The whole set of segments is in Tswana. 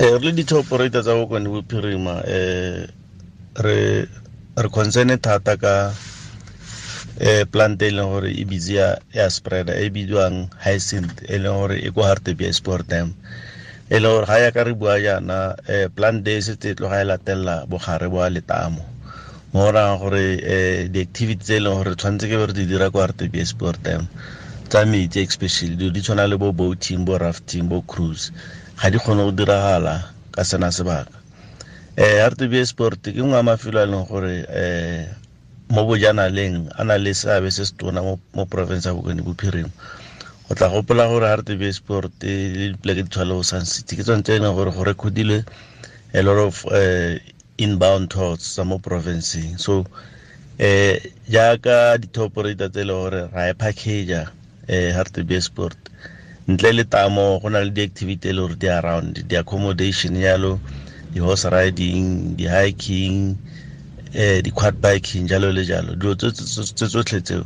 Re le di-tour operator tsa Bokone Bophirima, re concerned thata ka plant e leng gore e busy ya spreader e bidiwang Hyacinth, e leng gore e ko Hartbeespoort Dam, e leng gore ga ya ka re bua jaana, plant e setse e tloga e latelela bogare bo letamo, mo go rayang gore di-activity tse e leng gore tshwanetse ke be re di dira ko Hartbeespoort Dam tsa metsi, especially dilo di tshwana le bo boating, bo rafting, bo cruise, ga di kgone go diragala ka sena sebaka. Hartbeespoort ke nngwe ya mafelo a e leng gore mo bojanaleng a na le seabe se se tona mo province ya Bokone Bophirima. O tla gopola gore Hartbeespoort le dipoleke di tshwana le bo Sun City ke tsone tse e leng gore go recordilwe a lot of inbound tours tsa mo provinceng. So jaaka di-tour operator tse e leng gore ra e package-a Hartbeespoort, ntle le tamo go na le di-activity e le gore di around, di-accommodation jalo, di-horse riding, di-hiking, di-quad biking jalo le jalo. Dilo tse tsotlhe tseo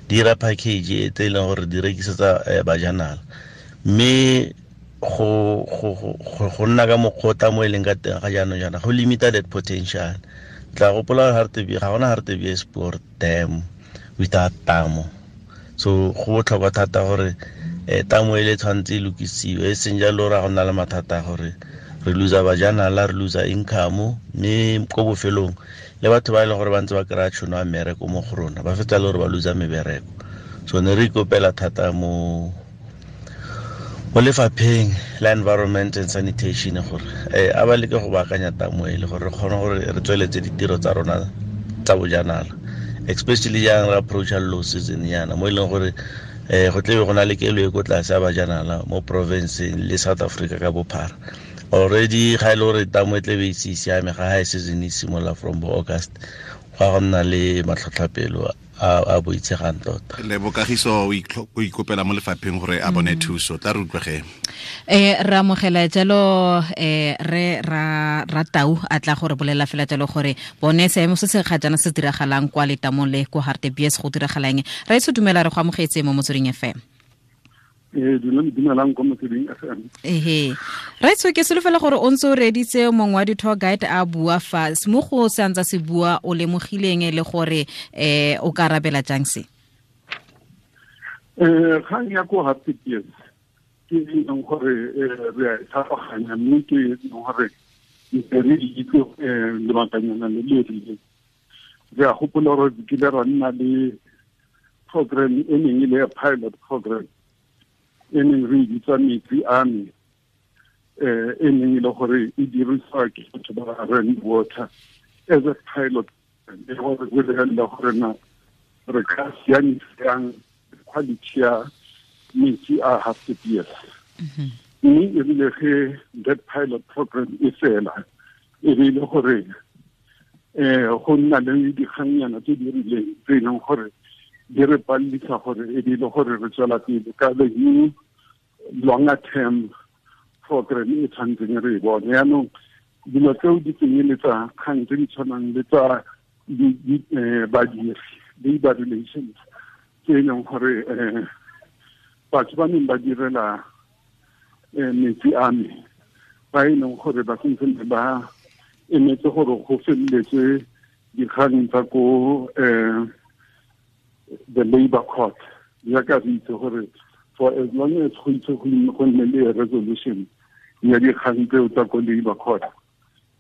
di dira package tse e leng gore di rekisetsa bajanala. Mme go nna ka mokgwa o tamo e leng ka teng ga jaanong jaana go limita that potential. Tla gopola ga gona Hartbeespoort Dam without tamo. So go botlhokwa thata gore tamo e le tshwanetse e lokisiwe, e seng jalo ra go nna le mathata a gore re losa bajanala, re losa income, mme ko bofelong le batho ba e leng gore ba ntse ba kry-a tšhono ya mmereko mo go rona ba fetsa le gore ba losa mebereko. So ne re ikopela thata mo lefapheng la environment and sanitation gore a ba leke go baakanya tamo e le gore re kgone gore re tsweletse ditiro tsa rona tsa bojanala, especially jang re approacha low season yana mo e leng gore go tlebe go na le kelo e ko tlase ya bajanala mo provinceng le South Africa ka bophara. Already ga e le gore tamo e tlebe e se siame ga high season e simolola from bo August, go a go nna le matlhotlhapelo a boitshegang tota. Le bokagiso o ikopela mo lefapheng gore a bone thuso, tla re utlwege. Re amogela jalo re ra tau a tla gore bolela fela jalo gore bone seemo se se ga jaana se diragalang kwa letamong le ko Hartbees go diragalang. Ra itse dumela, re go amogetse mo Motsweding FM. Dumelang ko Motsweding FM. Ehe. Ra itse ke solofela gore o ntse o reditse mongwe wa di-tour guide a bua fa mo go se antsa se bua, o lemogileng le gore o ka arabela jang se? Kgang ya ko Hartbees ke e leng gore re a e tlhaloganya, mme ke e leng gore ntse re itse lebakanyana le le rileng. Re a gopola gore kile ra nna le program e neng e le ya pilot program e neng re e bitsa Metsi a Me, e neng e le gore e dirisiwa ke batho ba Rand Water as a pilot, e gore go lebelela gore na re ka siamisa jang quality ya metsi a Hartbees. Mme e rile ge that pilot program e fela, e be e le gore go nna le dikgannyana tse di rileng tse e leng gore di re palelisa gore e be e le gore re tswela pele ka the new longer term program e tshwanetseng re e bone. Yaanong dilo tseo di tsenyeletsa kgang tse di tshwanang le tsa badiri, labor relations, tse e leng gore batho ba neng ba direla metsi a me ba e leng gore ba sentse ba emetse gore go feleletse dikgang tsa ko the labor court. Jaaka re itse gore for as long as go itse go nne le resolution ya dikgang tseo tsa ko labor court,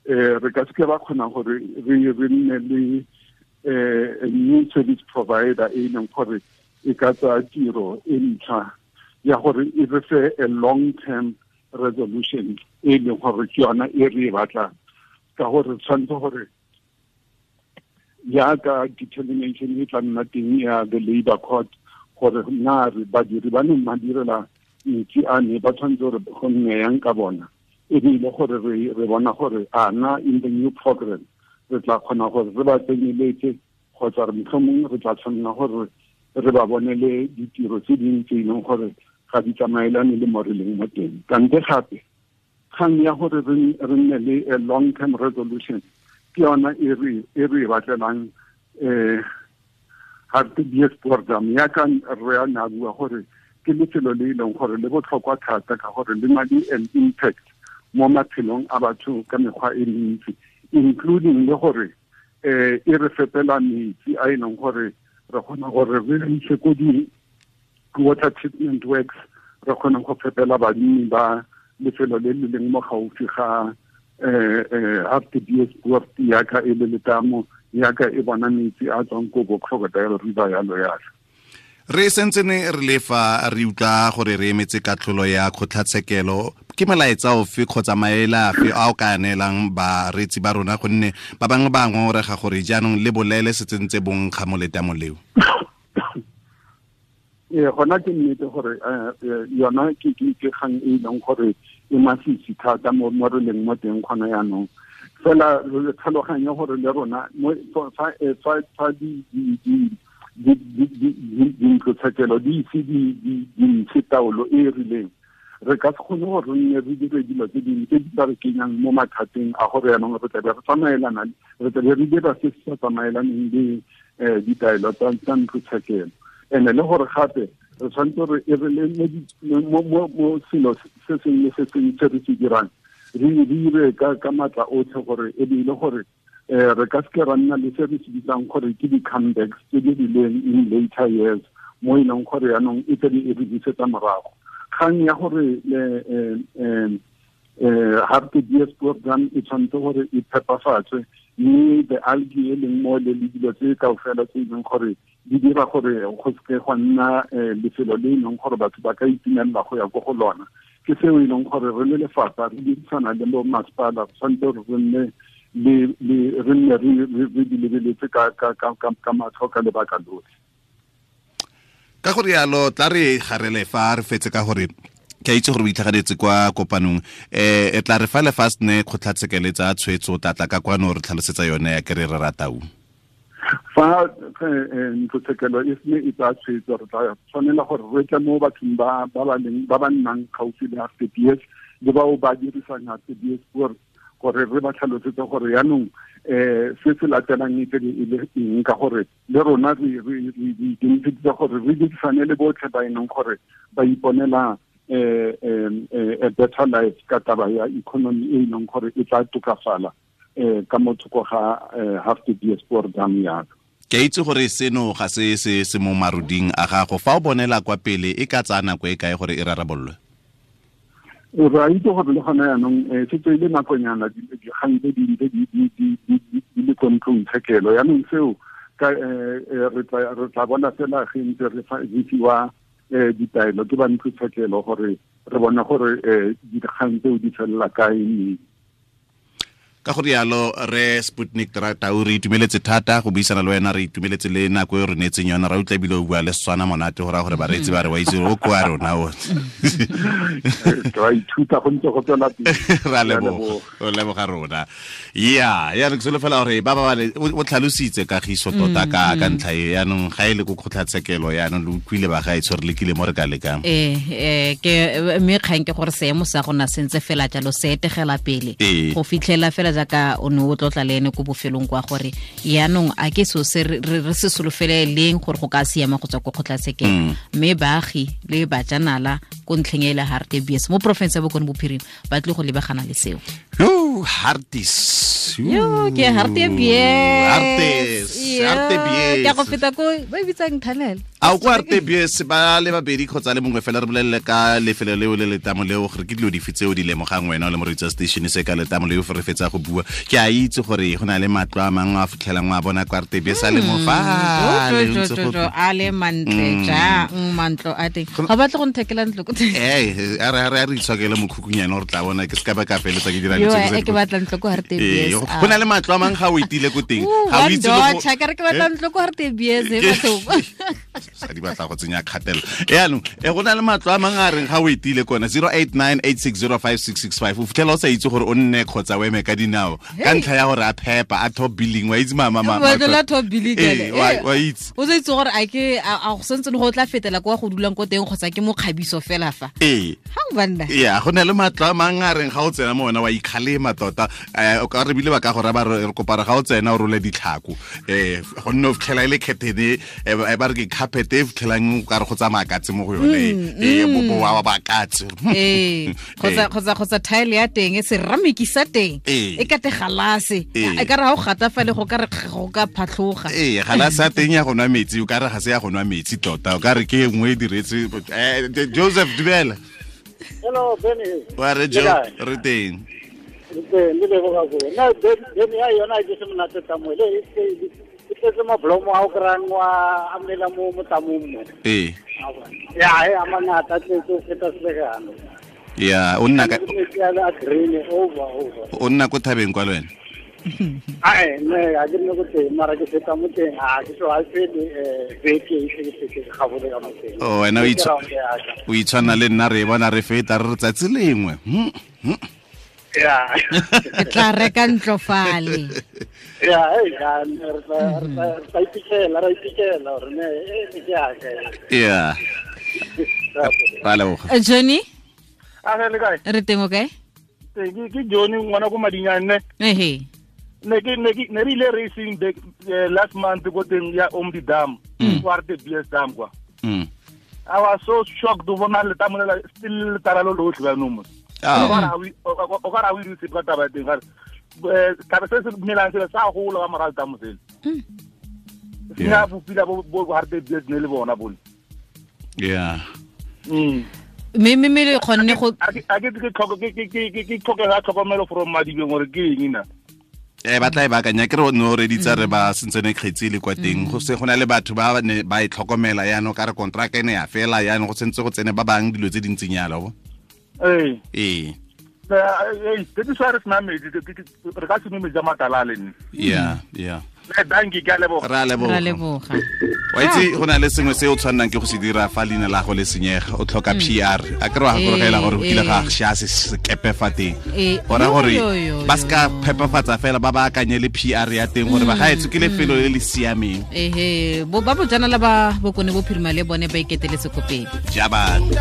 re ka seke ba kgona gore re nne le a new service provider e leng gore e ka tsaya tiro e ntšha ya gore e re fe a long term resolution e leng gore ke yona e re e batlang, ka gore tshwanetse gore jaaka determination e tla nna teng ya the labor court gore na re badiri ba neng ba direla metsi a ne ba tshwanetse gore go nne yang ka bona, e be ile gore re bona gore a na in the new program re tla kgona gore re ba tsenyeletse kgotsa re mohlomong re tla tshwanela gore re ba bonele ditiro tse dingwe tse e leng gore ga di tsamaelane le mo re leng mo teng. Kante gape kgang ya gore re nne le a long term resolution ke yona e re e batlelang Hartbeespoort Dam. Yaka re a na bua gore ke lefelo le e leng gore le botlhokwa thata ka gore le na le an impact mo maphelong a batho ka mekgwa e mentsi, including le gore e re fepela metsi a e leng gore re kgona gore re ise ko di water treatment works, re kgona go fepela banni ba lefelo le le leng mo gaufi ga Hartbeespoort yaka e le letamo yaka e bona metsi a tswang ko bo Crocodile River yalo yalo. Re sentsene re lefa re utlwa gore re emetse katlholo ya kgotlatshekelo, ke molaetsa ofe kgotsa maele afe a o ka neelang bareetsi ba rona, gonne ba bangwe ba ngongorega gore jaanong le bolele se tsentse bonkga mo letamong leo? Ee, gona ke nnete gore yona ke kgang e leng gore e masisi thata mo re leng mo teng gona jaanong. Fela re tlhaloganye gore le rona fa dintlotshekelo di ise di ntshe taolo e e rileng, re ka se kgone gore re nne re dire dilo tse dingwe tse di tla re kenyang mo mathateng a gore jaanong re tlabe re tsamaelana, re tlabe re dira se se sa tsamaelaneng le ditaelo tsa ntlotshekelo. And-e le gore gape re tshwanetse re e re le mo selo se sengwe le se sengwe se re se dirang re dire ka maatla otlhe gore e be e le gore re ka seke ra nna le se re se bitsang gore ke di-comebacks tse di rileng in later years, mo e leng gore jaanong e tlabe e re busetsa morago. Kgang ya gore Hartbeespoort Dam e tshwanetse gore e phepafatswe, mme the algae e leng mo le dilo tse kaofela tse e leng gore di dira gore go seke gwa nna lefelo le e leng gore batho ba ka itumelela go ya ko go lona, ke seo e leng gore re le lefapha re dirisana le bo masepala, re tshwanetse gore re nne le re nne re di lebeletse ka matlho ka lebaka lotlhe. Ka gore yalo tla re garele fa re fetse, ka gore ke a itse gore o itlhaganetse kwa kopanong, e tla re fa le fa sene kgotlatshekelo tsa tshwetso tlatla ka kwano re tlhalosetsa yone ya kere re ratau. Fa ntlotshekelo e sene e tsaya tshwetso, re tla tshwanela gore re tle mo bathong ba ba leng ba ba nnang gaufi le Hartbees le bao ba dirisang Hartbeespoort, gore re ba tlhalosetse gore jaanong se se latelang e tlabe e le eng, ka gore le rona re ikemiseditse gore re dirisane le botlhe ba e leng gore ba iponela a better life ka taba ya economy e leng gore e tla tokafala ka mo thoko ga Hartbeespoort Dam yalo. Ke a itse gore seno ga se se se mo maruding a gago, fa o bonela kwa pele e ka tsaya nako e kae gore e rarabololwe? Re a itse gore le gona jaanong setse e le nakonyana dikgang tse di ntse di le ko ntlong tshekelo, jaanong seo re tla bona fela ge ntse re fiwa ditaelo ke ba ntlo tshekelo gore re bone gore dikgang tseo di felela kae mme. Ka go rialo re Sputnik Tau, re itumeletse thata go buisana le wena, re itumeletse le nako e re neetseng yona, ra utlwa ebile o bua le Setswana monate, go raya gore bareetsi ba re wa itse o kwa rona o. Ra ithuta go ntse go tswela pele. Ra leboga, o leboga rona. Ya, ya re ke solofela gore ba ba o tlhalositse kagiso tota ka ntlha e, yaanong ga e le ko kgotlatshekelo yaanong le utlwile ba ga e tshwere lekile mo re ka lekang. Ke mme kgang ke gore seemo sa gona sentse fela jalo se etegela pele go fitlhela fela jaaka o ne o tlotla le ene ko bofelong kwa gore yaanong a ke so se re se solofele leng gore go ka siama go tswa ko kgotlatshekelo, mme baagi le bajanala ko ntlheng e le Hartbees mo porofense ya Bokone Bophirima ba tlile go lebagana le seo. Yo, Hartis. Yo, ke Hartbees. Hartis, Hartbees. Ke go feta ko ba e bitsang tunnel. A ko Hartbees ba le babedi kgotsa le mongwe fela re bolelele ka lefelo leo le letamo leo gore ke dilo dife tseo di lemogang wena o le moreetsi wa station se ka letamo leo re fetsa go bua. Ke a itse gore go na le matlo a mangwe a fitlhelang wa bona kwa Hartbees a le mo fa a le mantle jang mantlo a teng, ga batle go nthekela ntlo ko teng. Eh, a re itshokele mokhukunyana gore tla bona ke se ka ba ka feletsa ke dira e ke batla ntlo ko Hartbees. Go na le matlo a mangwe ga o etile ko teng ga o itse go ka re ke batla ntlo ko Hartbees e batho sa di batla go tsenya kgatelelo yaanong go na le matlo a mangwe a reng ga o etile kona 0898605665 o fitlhela o sa itse gore o nne kgotsa o eme ka dinao ka ntlha ya gore a phepa a top billing wa itse mama la top billing wa itse o sa itse gore a ke a go sentse go tla fetela kwa go dulang ko teng kgotsa ke mokgabiso fela fa ha o banna ya go na le matlo a mangwe a reng ga o tsena mo ona wa ikgalema tota, o ka re bile ba ka gore ba re kopara ga o tsena o role ditlhako gonne o fitlhela e le curtain, ba re ke carpet. carpet e fitlhelang o ka re go tsamaya katse mo go yone e boboa wa bakatse kgotsa tile ya teng e ceramic sa teng e ka te galase e ka re ha o gata fa le go ka re go ka phatlhoga galase ya teng ya go nwa metsi o ka re ga se ya go nwa metsi tota o ka re ke nngwe e diretse Joseph dumela. Hello Benny. Wa re Jo re teng. Le leboga go na Benny ya yona ke se monate tamo le e tletse mablomo a o kry-ang wa amela mo motamong mo. Ya e a mangata tletse o feta selekano. Ya o nna ka over. O nna ko thabeng kwa le wena? Ae ne a ke nne ko teng mara ke feta mo teng a ke so a fele beke e se ke gabole ka mo teng. Oh wena o itshwana le nna re bona re feta re tsatsi lengwe. Ya. Ke tla reka ntlo fale. Ya, ya, re tla iphitlhela gore ne e ke ya ka. Ya. Ra leboga. Johnny? A re le kae? Re teng o kae? Ke Johnny ngwana ko Madinyane. Ehe. Ne re ile racing last month go teng ya Omdi Dam, kwa RTBS Dam kwa. I was so shocked to bona le tamolela still taralo lotlhe ba nomo. O ka ra o itse ka taba teng ga taba se se melang se sa gola ka morago tamo sele. Ya bopila bo RTBS ne le bona bone. Yeah. Mme le kgonne go a ke ke tlhokega tlhokomelo from Madibeng gore ke eng na. Ba tla e baakanya ke re no reditsa re ba sentsene kgetsi le kwa teng go se gona le batho ba ne ba e tlhokomela yaanong ka re contract ene ya fela yaanong go sentse go tsene ba bang dilo tse dintseng yalo bo. Ee. That is why re sena metsi re ka se nwe metsi a matala le nne. Yeah, yeah. Thank you, ka leboga. Ra leboga. Wa itse go na le sengwe se o tshwannang ke go se dira fa leina la go le senyega o tlhoka PR a ke re wa gakologela gore o kile ga sha se sekepe fa teng gora gore ba se ka phepafatsa fela ba baakanye le PR ya teng gore ba gaetsho ke lefelo le le siameng. Ba bojanala ba Bokone Bophirima le bone ba iketeletse ko pele. Jabane.